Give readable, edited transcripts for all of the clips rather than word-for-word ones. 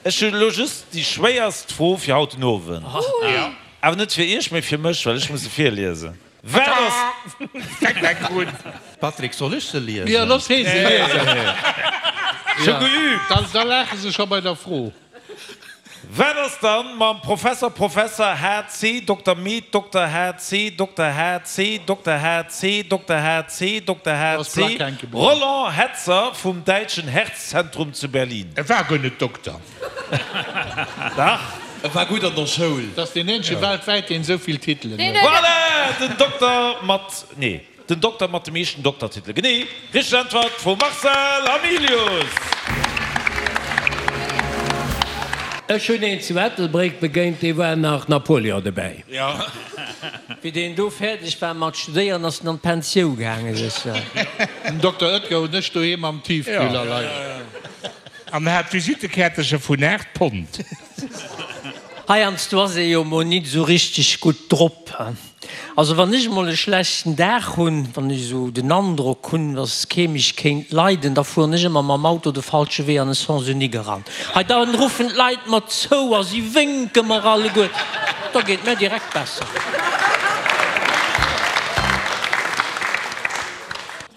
Ech hunn elo just déi schwéierst Fro fir haut den Owend. Awer net fir iech, mee fir mech, well ech muss se virliesen. Wat ass. Fänkt enk un. Patrick, soll ech se liesen? Jo, looss hee se liesen. Ech hu geüübt. Da laache se scho bei der Fro. Wat ass dann mam Professor Professor HC Dokter Med Dokter HC Dokter HC Dokter HC Dokter HC Dokter HC Roland Hetzer vum däitschen Herzzentrum zu Berlin? E war guer net Dokter. Dach. E war gutt an der Schoul. Dat ass deen eenzege weltwäit, deen esou vill Titelen huet. Voilà! Den Dokter mat, nee. Den Dokter mat de meeschten Doktertitele. Genee, richteg Äntwert vum Marcel Hamilius! Ech hunn een zu Ettelbréck begéint, dee war nach Napoleon dobäi. Wéi deen do fäerdeg war mat studéieren, ass en an d'Pensiou gaangen, sécher. Den Dokter Oetker hunn ech doheem am Tiefkühler leien. An hat Visittekäertercher vun 8 Pond. Heiansdo ass ee jo mol nit esou richteg gutt drop. Also wann ech mol e schlechten Dag hunn, wann ech esou den Androck hunn, dass kee mech kéint leiden, da fueren ech ëmmer mam Auto de falsche Wee an e Sens unique eran. Hei da ruffen d'Leit mer zou a si wénke mer alleguer, da geet et mär direkt besser.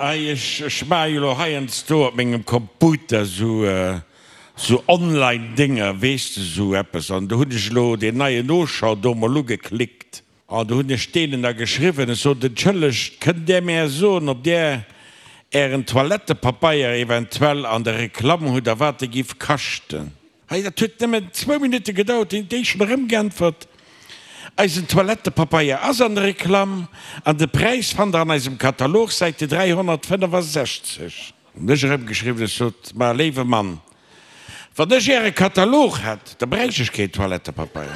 Ei, ech maache jo lo heiansdo op mengem Computer sou sou online Dénger, weess de, sou eppes, an do hunn ech elo deen neien Auchan do mol ugeklickt. An do hunn ech deenen da geschriwwen, ech sot, Entschëllegt, kënnt Där mär soen, ob Där Ären Toilettepapeier eventuell an der Reklamm hutt a wat e giff kaschten? Hei, dat huet nëmmen zwou Minutte gedauert, hunn déi schonn erëmgeäntwert, Eisen Toilettepapeier ass an der Reklamm an de Präis fannt Der an eisem Katalog, Säite 365. Hunn ech erëmgeschriwwen, ech sot, Ma léiwe Mann, wann ech Äre Katalog hätt, da bräicht ech keen Toilettepapeier.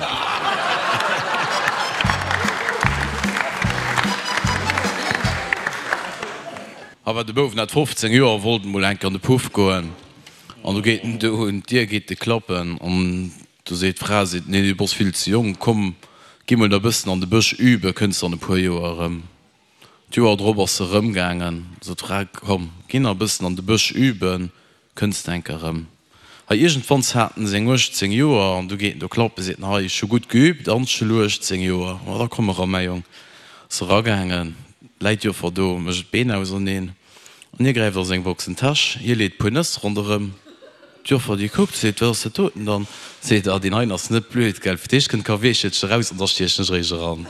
Awer de Bouf hat 15 Joer, wollt emol enk an de Puff goen an du geet en do un d'Dier, geet e klappen an du seet d'Fra, seet, Nee, du bass vill ze jonk, komm, gi mol nach e bëssen an de Bësch üben, kënns an e puer Joer erëm. D'Joer drop ass se erëm gaangen, sot d'Fra, Komm, gi nach e bëssen an de Bësch üben, kënns de enk erëm. Hei iergendwanns hat en seng 18 Joer an du geet en do klappen, seet en, Hei, ech hu gutt geübt, anschelu 18 Joer, ma da komm eran, mäi Jong. Ass eragaangen, läit d'Joffer do, mécht d'Been auserneen an hie gräift a seng Boxentäsch, hie leet puer Nëss ronderëm. D'Joffer déi kuckt, seet, Wat ass dat doten dann? Seet, Ah, deen heien ass net blöd, gell, fir d'éischt kënnt d'Kaweechelchen eraus an da stiechen ech eréischt eran.